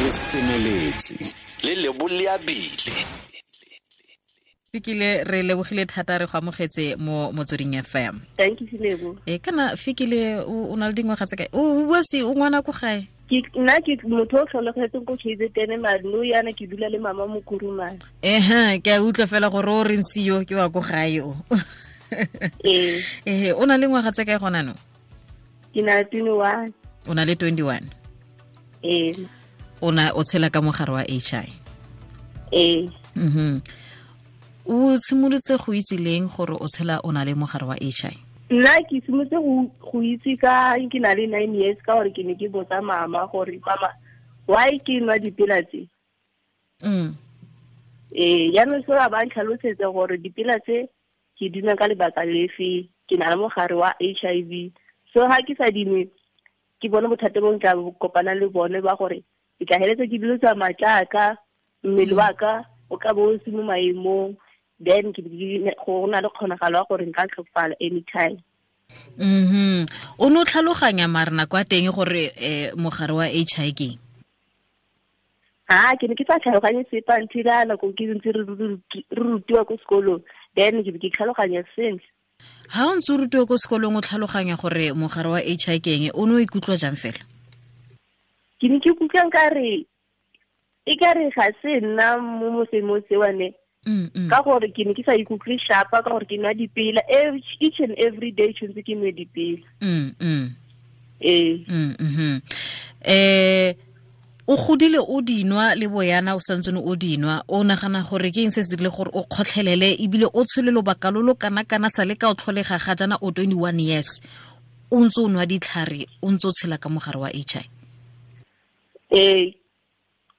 Re semeletse le leboleabile. Fikile, re lebogile thata, re go amogetse mo Motsweding FM. Thank you, Lebo. E kana Fikile, o na le dingwaga tse kae? O bua se o ngwana ko gae? Ke nna ke motho o tlholegetseng ko KZN, mare no yana ke dula le mama mo Kurumane. Ehe, ke a utlwa fela gore o reng seo ke wa ko gae o. Ee. Ehe, o na le ngwaga tse kae gona no? Ke na le 21. O na le 21? Ee. O na o tshela ka mogare wa HI? Ee. O simolotse go itse leng gore o tshela o na le mogare wa HI? Nna ke simolotse go itse ka ke na le 9 years, ka gore ke ne ke botsa mama gore mama why ke nwa dipela tse. Ee, jaanong se ba ntlhalosetsa gore dipela tse ke di nwa ka lebaka lefe, ke na le mogare wa HIV. So ha ke sa dinwe, ke bone bothata bo nka kopana le bone ba gore ke tla heletsa ke dilo tsa matlaka, mmele wa ka o ka bo o se mo maemong, then ke go na le kgonagalo ya gore nka tlhokofala anytime. O no tlhaloganya mare nako ya teng gore mogare wa HIV ke eng? Ha, ke ne ke sa tlhaloganye sepe until a nako ke ntse re rutiwa ko sekolong, then ke be ke tlhaloganya sentle. Ha o ntse o rutiwa ko sekolong o tlhaloganya gore mogare wa HIV ke eng, o ne o ikutlwa jang fela? Ke ne ke ikutlwa nkare e ka re ga se nna mo mosemong sewane. Ka gore ke ne ke sa ikutlwe sharp, ka gore ke nwa dipela each and every day, tshwanetse ke nwe dipela. Ee. O godile o dinwa le boyana o santsene o dinwa, o nagana gore ke eng se se dirile gore o kgotlhelele ebile o tshele lobaka lo lo kana-kana sa le ka o tlholega ga jaana o 21 years, o ntse o nwa ditlhare, o ntse o tshela ka mogare wa HIV? Ee.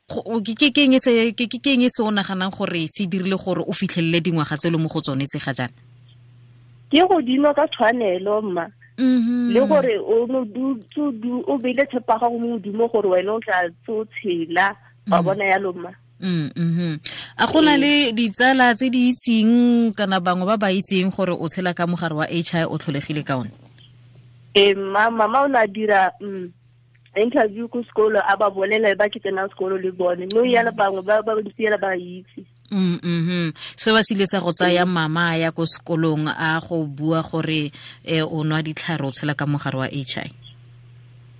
Ke eng se o naganang gore se dirile gore o fitlhelele dingwaga tse le mo go tsone tse ga jaana? Ke go dinwa ka tshwanelo, mma. Le gore o no o beile tshepo ya gago mo Modimo gore wena o tla tso tshela, wa bona yalo, mma. A go na le ditsala tse di itseng kana bangwe ba ba itseng gore o tshela ka mogare wa HIV o tlholegile ka one? Ee, mma, mama o ne a dira interview ko sekolo, a ba bolela ba ke tsenang sekolo le bone. No yana bangwe ba ba ntse yela ba itse. Se ba sile sa go tsaya mama ya ko sekolong a go bua gore o nwa ditlhare o tshela ka mogare wa HIV?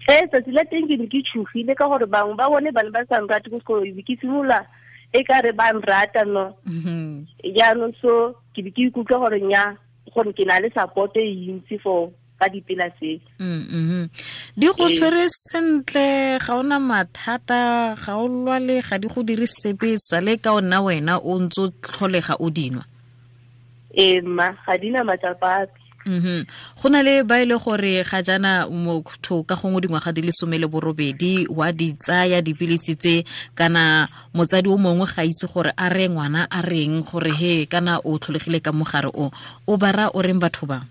Ee, tsatsi la teng ke ne ke tshogile ka gore bangwe ba bone ba ne ba sa nrate ko sekolong, be ke simolola e ka re ba nrata, no. Jaanong so ke be ke ikutlwa gore nya, gore ke na le support e ntsi for ka dipela tse. Di go tshwere sentle, ga ona mathata, ga o lwale, ga di go dire sepe, sale ka ona wena o ntse o tlholega o dinwa. Ee, mma, ga di na matsapa ape. Go na le ba e le gore ga jaana motho ka gongwe dingwaga di le 18 wa di tsaya dipilisi tse, kana motsadi o mongwe ga itse gore a re ngwana a reng gore he kana o tlholegile ka mogare o, o ba raya o reng batho ba?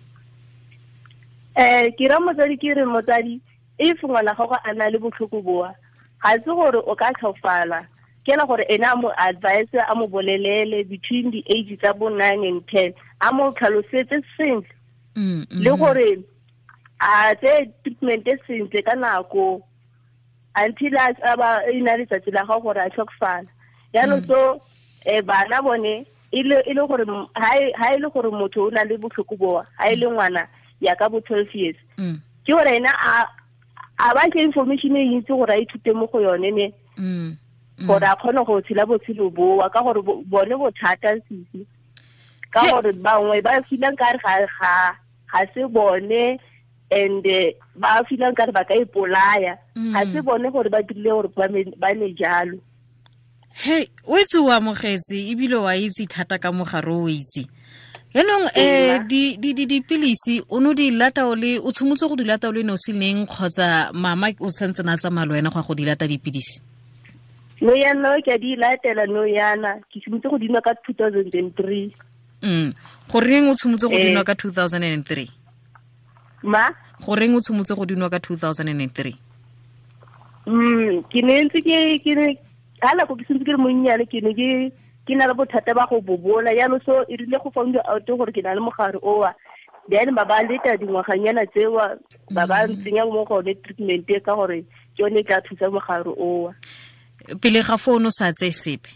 Ke ra motsadi, ke re motsadi, if ngwana gago a na le botlhoko boa, ga se gore o ka tlhofala, ke la gore ena a mo advise, a mo bolelele between the age tsa bo 9 and 10, a mo tlhalosetse sentle. Le gore a tse treatment e sentle ka nako until a ba e na letsatsi la gago gore a tlhokofala. Jaanong so, bana bone, e le gore ha e le gore motho o na le botlhoko boa, ha e le ngwana ya ka bo 12 years. Ke gore ena a ba ke information e ntsi gore a ithute mo go yone ne. Gore a kgone go tshela botshelo boa, ka gore bone bothata sisi. Ka gore bangwe ba feelang ka re ga se bone, and ba feelang ka re ba ka ipolaya. Ga se bone gore ba dirile gore ba ne jalo. Hey, o itse o amogetse ebile wa itse thata ka mogare o itse. Jaanong, dipilisi o no di lata o le, o tshimotse go di lata o le nosi neng, kgotsa mama o santse na tsamaya le wena go ya go di lata dipilisi? No yana ke a di latela no yana, ke simotse go di nwa ka 2003. Goreng o tshimotse go di nwa ka 2003? Ma? Goreng o tshimotse go di nwa ka 2003? Ke ne ntse ke, ke ne, ha nako ke sentse ke le monnyane, ke ne ke, ke na le bothata ba go bobola. Jaanong so e rile go found out gore ke na le mogare owa, then ba ba leta dingwaganyana tsewa, ba ba ntsenya mo go yone treatment e ka gore ke yone e tla thusa mogare owa. Pele ga fono sa tse sepe.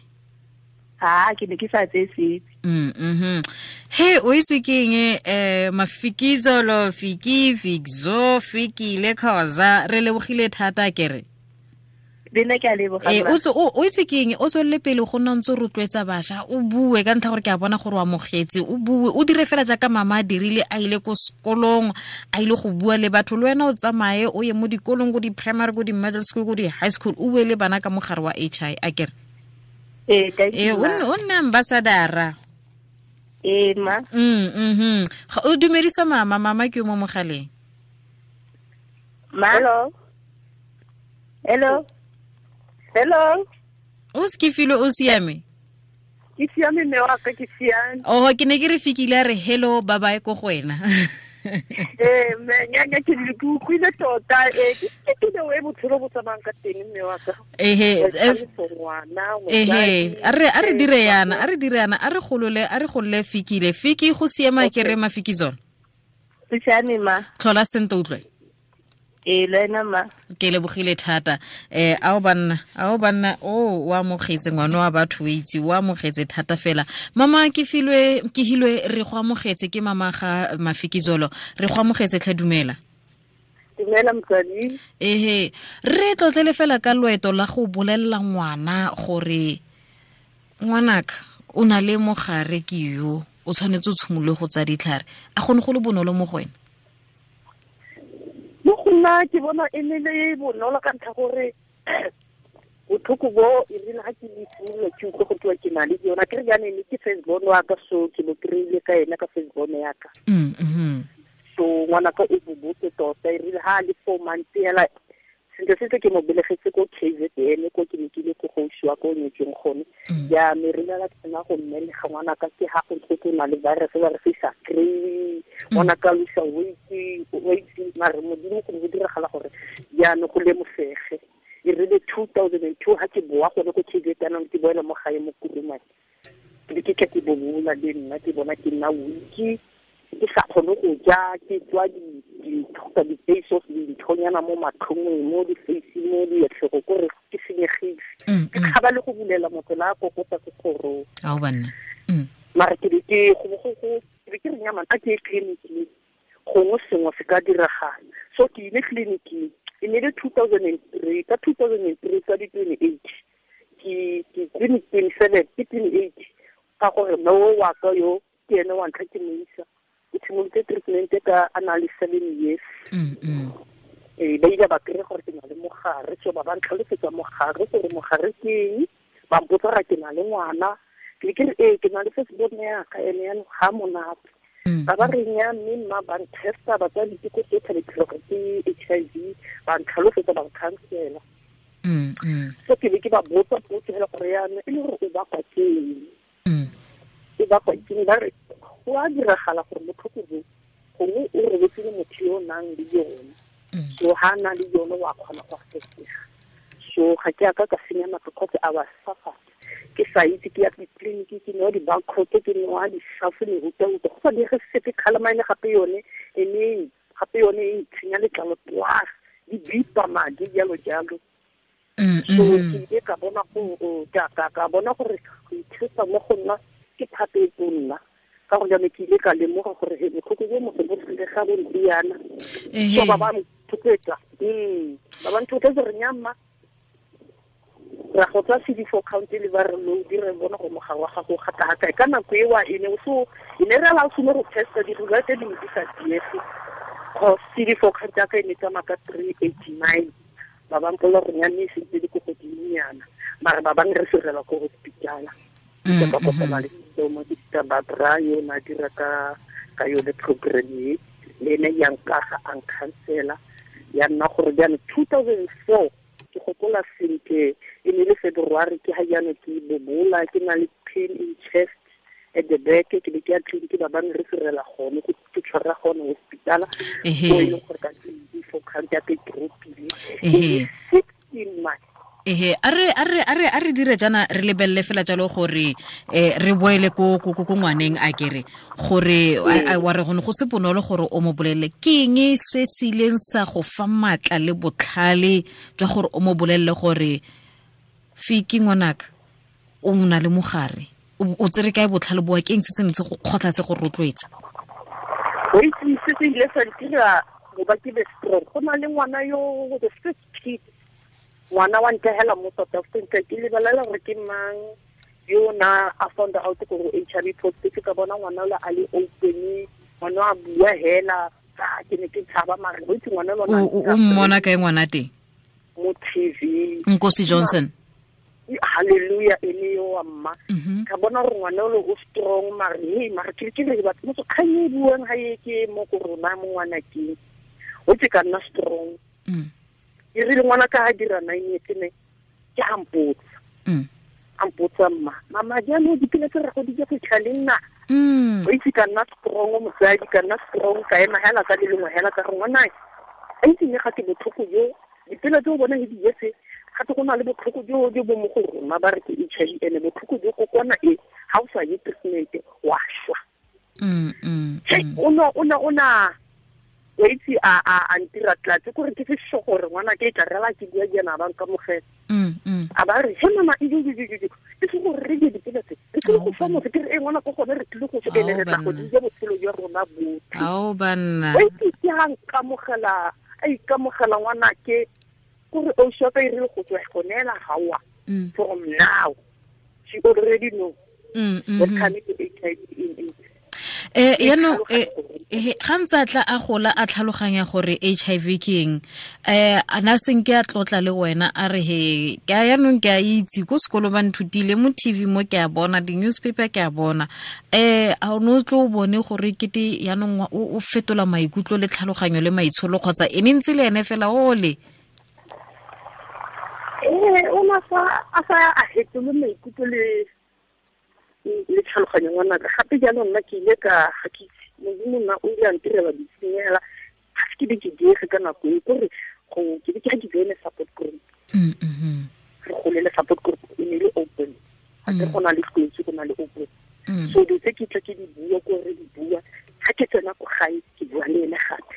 Ha ke ne ke sa tse sepe. He o itse keng Mafikizolo Fiki Fikzo Fikile Khoza re lebogile thata kere. Bena ke a leboga. O itse keng o tswelele pele go nna ntse rotloetsa basha o bue ka ntlha gore ke a bona gore o amogetse o bue o dire fela jaaka mama a dirile a ile ko sekolong a ile go bua le batho le wena o tsamaye o ye mo dikolong ko di-primary ko di-middle school ko di-high school o bue le bana ka mogare wa HI a kere. O nne ambassadora. Ma. O dumedisa mama mama ke yo mo mogaleng. Ma. Hello. Hello. Hello. O skifile o siame? Ke siame mme wa ka ke siame. Oh ke ne ke re fikile re hello bye bye ko go wena. Mme nya ke le utlwile tota ke ke we botshelo bo tsamayang ka teng mme wa ka. A re dire yana a re golole fikile Fiki go siama ke re Mafikizolo. Ke siame ma. Tlhola sente utlwe. Le ma. Ke lebogile thata. Ao banna o wa amogetse ngwana wa batho o itse o amogetse thata fela. Mama ke filwe ke hilwe re go amogetse ke mama ga Mafikizolo re go amogetse tlhe dumela. Dumela motsadi. Re tlotlele fela ka loeto la go bolella ngwana gore ngwanaka o na le mogare ke yo o tshwanetse o tshimolole go tsa ditlhare a gone go le bonolo mo go wena. Mo go nna ke bona e ne le bonolo ka ntlha gore botlhoko bo e rile ga ke simolola ke utlwe go tewa ke na le yona ke re jaanong ne ke first born wa ka so ke mo kry-ile ka ena ka first born ya ka. So ngwanaka o bobotse tota e rile ha a le 4 months hela sentle sentle ke mo belegetse ko KZN ko ke ne ke ile ko gausi wa ko nyetseng gone. Jaanong re rile la tsena go mmelega ngwanaka ke ha go ntse go na le virus ba re sa kry-e ngwanaka losa weight mare modimo go ne go diragala gore jaanong go lemosege. E rile 2002 ha ke boa gone ko KZN ke boela mo gae mo Kurumane ke ke tla ke bobola le nna ke bona ke nna weak ke sa kgone go ja ke tswa di di-face of dinthonyana mo matlhong mo di-face mo diatlhego kore ke senyegile ke tshaba le go bulela motho la kokota ko kgorong. Ao banna. Mara ke be ke ke re nyamana a ke ye tleliniking gongwe sengwe se ka diragala. So ke ile tleliniking e ne le 2003 ka 2003 ka di-28 ke 27 ke 28 ka gore mme o wa ka yo ke ene wa ntlha ke mo isa. Ke simolotse treatment ka a na le 7 years. Ba ile ba kry-a gore ke na le mogare so ba ba ntlhalosetsa mogare gore mogare ke eng ba mpotsa gore ke na le ngwana ke ke re ke na le first born ya ka ene yanong ga monate. Ba ba re nya mme mma ba ntesta ba tsaya diteko tsotlhe le gore ke HIV ba ntlhalosetsa ba nkhansela. So ke be ke ba botsa potso fela gore yanong e le gore o bakwa ke eng. E bakwa ke eng ba re go a diragala gore botlhoko bo gongwe o robetse le motho yo o nang le yone. So ha na le yone wa kgona go affectega. So ga ke a ka ka senya nako because I was suffered. Ke sa itse ke ya ditleliniki ke nwa di-barcode ke nwa di-shuffle mehuta-huta go sa dire sepe calamine gape yone e gape yone e ntshenya letlalo plus di bipa madi jalo jalo. So ke ile ka bona ka bona gore go ithusa mo go nna ke thata e tonna. Ka gore jaanong ke ile ka lemoga gore he botlhoko bo motho bo tlile ga bo ntiana. So ba ba nthotloetsa. Ba ba nthotloetsa gore nyamma ra go tswa CD4 count le ba re lo dire bona go mogare wa gago gata ga ka nako e wa ene so e ne re la o sone go testa di result di di sa diege. Cause CD4 count ya ka e ne tsamaya ka 389. Ba ba mpolela gore nyane e sentse di ko godimonyana mare ba bangwe re serela ko hospitala. Ke ka kopana le mo ke Barbara yo na dira ka yone program e le ene ya nkaga a nkhansela ya nna gore jaanong 2004 ke gopola sentle e ne le February ke ha jaanong ke bobola ke na le pain in chest at the back ke be ke ya tleliniki ba bangwe re serela gone ke tshwara gone hospitala mo e leng gore ka CD4 count ya ka e drop-ile 16 months. A re dire jana re lebelele fela jalo gore re boele ko ngwaneng a kere gore wa re gone go se bonolo gore o mo bolelle ke eng se se ileng sa go fa matla le botlhale jwa gore o mo bolelle gore Fiki ngwanaka o mna le mogare o tsere kae botlhale boa ke eng se se ntse go kgotla se go rotloetsa? O itse se se ile sa ntira go ba ke be strong. Go na le ngwana yo the first kid, ngwana wa ntehela mo South Africa, ke lebelela gore ke mang yo na a found out gore HIV positive. Ka bona ngwana ola a le open, ngwana a bua hela, ke ne ke tshaba mare o itse ngwana lona. O mmona kae ngwana teng? Mo TV. Nkosi Johnson. Hallelujah, ene yo wa mma. Ka bona gore ngwana ole o strong mare hey mare ke ke re batho motho kgang e buang ha e ke mo go rona mo ngwana ke. O tse ka nna strong. E rile ngwana ka ha dira 9 years ne ke a mpotsa. A mpotsa mma, mama jaanong dipila tse re go di ja go fitlha le nna. O itse ka nna strong mosadi, ka nna strong ka ema hela ka le lengwe hela ka re ngwana a itse ne ga ke botlhoko jo dipila tse o bona di jetse gape go na le botlhoko jo jo bo mo go rona ba re ke HIV ene botlhoko jo kokwana e ha o sa ye treatment wa shwa. O na o itse a ntira tlatse gore ke se gore ngwana ke tla rela ke bua jana ba nka mogela. A ba re he mama e di ke se gore re di dipela tse re tlile go fa motho ke re e ngwana go gone re tlile go fetele re tla go di ja botshelo jwa rona botlhe. Ao banna. O itse ke ha nkamogela a ikamogela ngwana ke gore o shapa e rile go tswa gonela hawa. From now she already know what coming to HIV in it. Yaanong ga ntse a tla a gola a tlhaloganya gore HIV ke eng, a na senke a tlotla le wena a re he ke a yaanong ke a itse ko sekolo ba nthutile mo TV mo ke a bona di-newspaper ke a bona, a o ne o tlo o bone gore kete yaanong o fetola maikutlo le tlhaloganyo le maitsholo kgotsa e ne ntse le ene fela ole? O na sa a sa a fetole maikutlo le tlhaloganyo ngwanaka. Gape jaanong nna ke ile ka ga ke itse modimo nna o ile a ntirela ditshenyegela ga se ke be ke diege ka nako e kore go ke be ke ga ke joine support group. Re golele support group e ne le open, ga ke go na le tlotsi go na le open. So dilo tse ke tla ke di bua ko re di bua ga ke tsena ko gae ke bua le ene gape.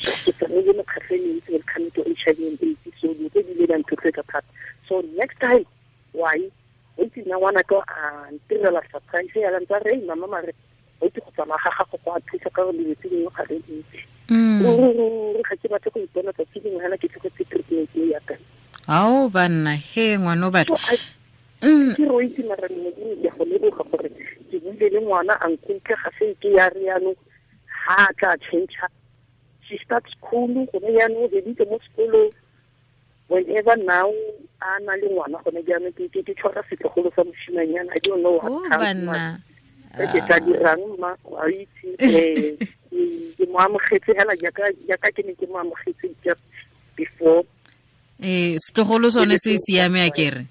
So ke tsamaile mekgatlho e mentsi when coming to HIV and AIDS, so dilo tse di ile di a nthotloetsa thata. So next time why o itse nna ngwana ka a ntirela surprise ya ntse re mama mare o itse go tsamaya ga gago go a thusa ka gore dilo tse dingwe ga re itse. Re ga ke batle go ipona tsatsi lengwe hela ke tlogetse treatment e ya ka. Ao banna he ngwana o batho. Ke re o itse mara modimo ke go leboga gore ke buile le ngwana a nkutlwe ga se ke ya re yaanong ha a tla change. She starts school gone yaanong o beditse mo sekolong. Whenever now a na le ngwana gone jaanong ke tshwara setlogolo sa moshimanyana. I don't know what banna ke tla dirang mma wa itse ke mo amogetse hela jaaka ke ne ke mo amogetse just before. Setlogolo sone se siame a kere?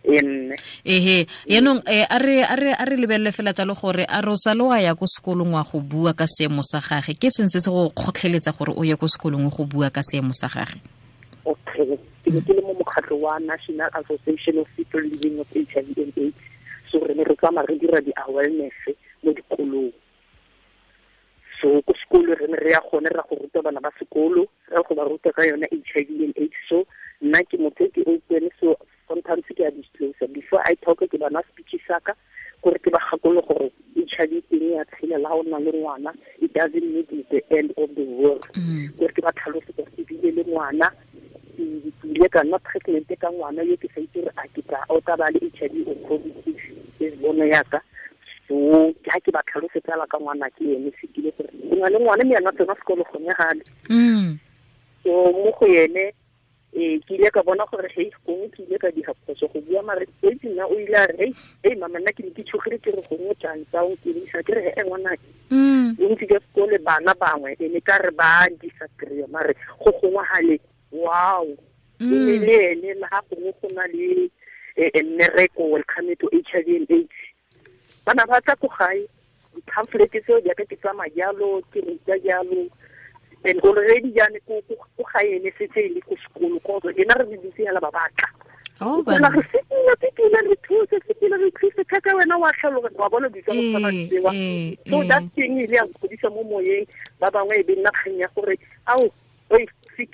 Ehe yaanong a re lebelele fela tsa le gore a re sa le wa ya ko sekolong wa go bua ka seemo sa gage, ke seng se se go kgotlheletsa gore o ye ko sekolong go bua ka seemo sa gage? Okay, ke ne ke le mo mokgatlho wa National Association of People Living with HIV and AIDS, so re ne re tsamaya re dira di-awareness mo dikolong. So ko sekolo re ne re ya gone ra go ruta bana ba sekolo, re go ba ruta ka yone HIV and AIDS. So nna ke motho ke open, so sometimes ke a disclose before I talk ke bana speech saka gore ke ba gakolole gore HIV teng ya tshela la o nna le ngwana, it doesn't mean it's the end of the world. Gore ke ba tlhalose gore ke bile le ngwana, ke ile ka nna pregnant ka ngwana yo ke sa itse gore a ke tla o tla ba le HIV or positive ke bona yaka. So ke ha ke ba tlhalosetsa ka ngwana ke ene se kile gore go na le ngwana mme yana tsena sekolo gone gale. So mo go ene ke ile ka bona gore hei gongwe ke ile ka diga phoso go bua mare itse nna o ile a re hei mama nna ke ne ke tshogile ke re gongwe jang tsa o ke isa ke re he ngwana ke bontsi jwa sekole bana bangwe e ne ka re ba disagree mare go gongwe gale wow e ne le ene le ga gongwe go na le mmereko welcome to HIV and AIDS bana ba tla ko gae di-pamphlet tseo jaaka ke tsamaya jalo ke ruta jalo. And already jaane ko gae ene setse e le ko sekolo ko ena re dutse hela ba batla. Bona re sepela re thuse sepela re thuse thata wena wa tlhaloganya wa bona ditsa go tshwana le tsewa. So that thing ile ya nkgodisa mo moyeng ba bangwe e be nna kgang ya gore ao oi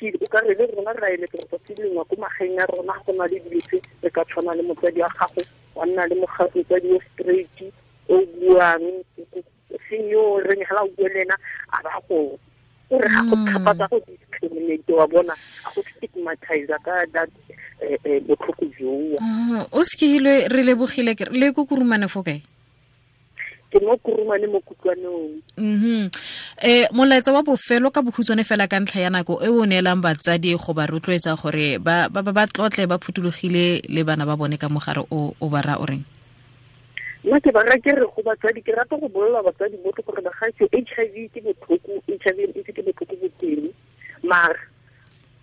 ke o ka re le rona re a eletsa gore tsatsi lengwe ko magaeng a rona go na le dilo tse re ka tshwana le motsadi wa gago, wa nna le motsadi o straight o buang, seng yo reng ga o bue le ena a ba go o re ga go thapatsa go discriminate, wa bona, a go stigmatize ka that botlhoko joo. O sekile, re lebogile. Le ko Kurumane fo kae? Ke mo Kurumane mo Kutlwanong. Molaetsa wa bofelo ka bokhutshwane fela ka ntlha ya nako e o neelang batsadi go ba rotloetsa gore ba ba tlotle ba phuthologile le bana ba bone ka mogare o ba ra o reng? Nna ke ba ke re go batsadi, ke rata go bolelela batsadi botlhe gore bagaetsho, HIV ke botlhoko, HIV and AIDS ke botlhoko bo teng, mara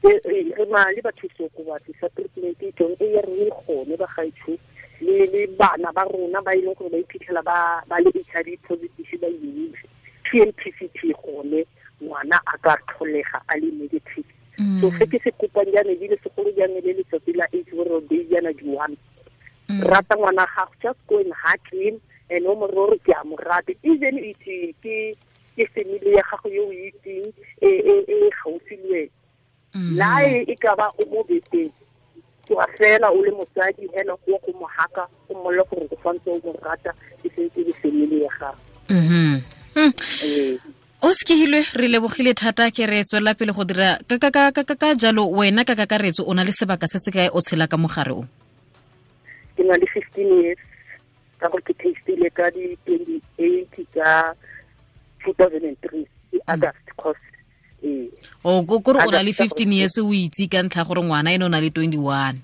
re na le bathusi okobatsi sa treatment e tsong e ya re gone bagaetsho, le bana ba rona ba e leng gore ba iphitlhela ba le HIV positive ba imile TMPCT gone ngwana a ka tlholega a le negative. So se ke se kopang jaana ebile segolo jaana le letsatsi la AIDS World Day jaana di-1, rata ngwana gago, just go and hug him and o mo re ke a mo rata, even it ke family ya gago yo o itseng e gaufi le wena, la e ka ba o mo beteng, tsoga fela o le motsadi hela go go mo haka, o mmolle gore o santse o mo rata, e sentse le family ya gago. O sekehilwe, re lebogile thata. Ke re tswelela pele go dira ka jalo. Wena ka kakaretso o na le sebaka se se kae o tshela ka mogare o? Ke na le 15 years ka gore ke testile ka di-28 tsa 2003 August cause. O kore o na le 15 years o itse ka ntlha gore ngwana ene o na le 21.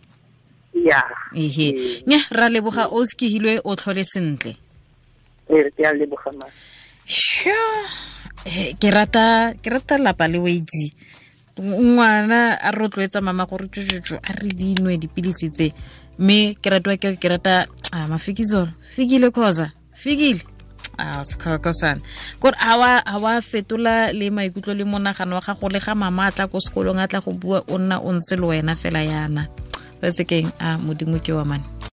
Ya. Ehe, nya ra leboga, o sekehilwe, o tlhole sentle. Ee, ke a leboga ma. Sure. Ke rata lapa le weitse ngwana a rotloetsa mama gore tšotšotšo a re dinwe dipilisi tse, mme ke ratwa ke rata a mafikizolo fikile khoza fikile a sekhokosana kore a wa fetola le maikutlo le monagano wa gago le ga mama a tla ko sekolong a tla go bua, o nna o ntse le wena fela yana ba sekeng a modimo ke wa mane.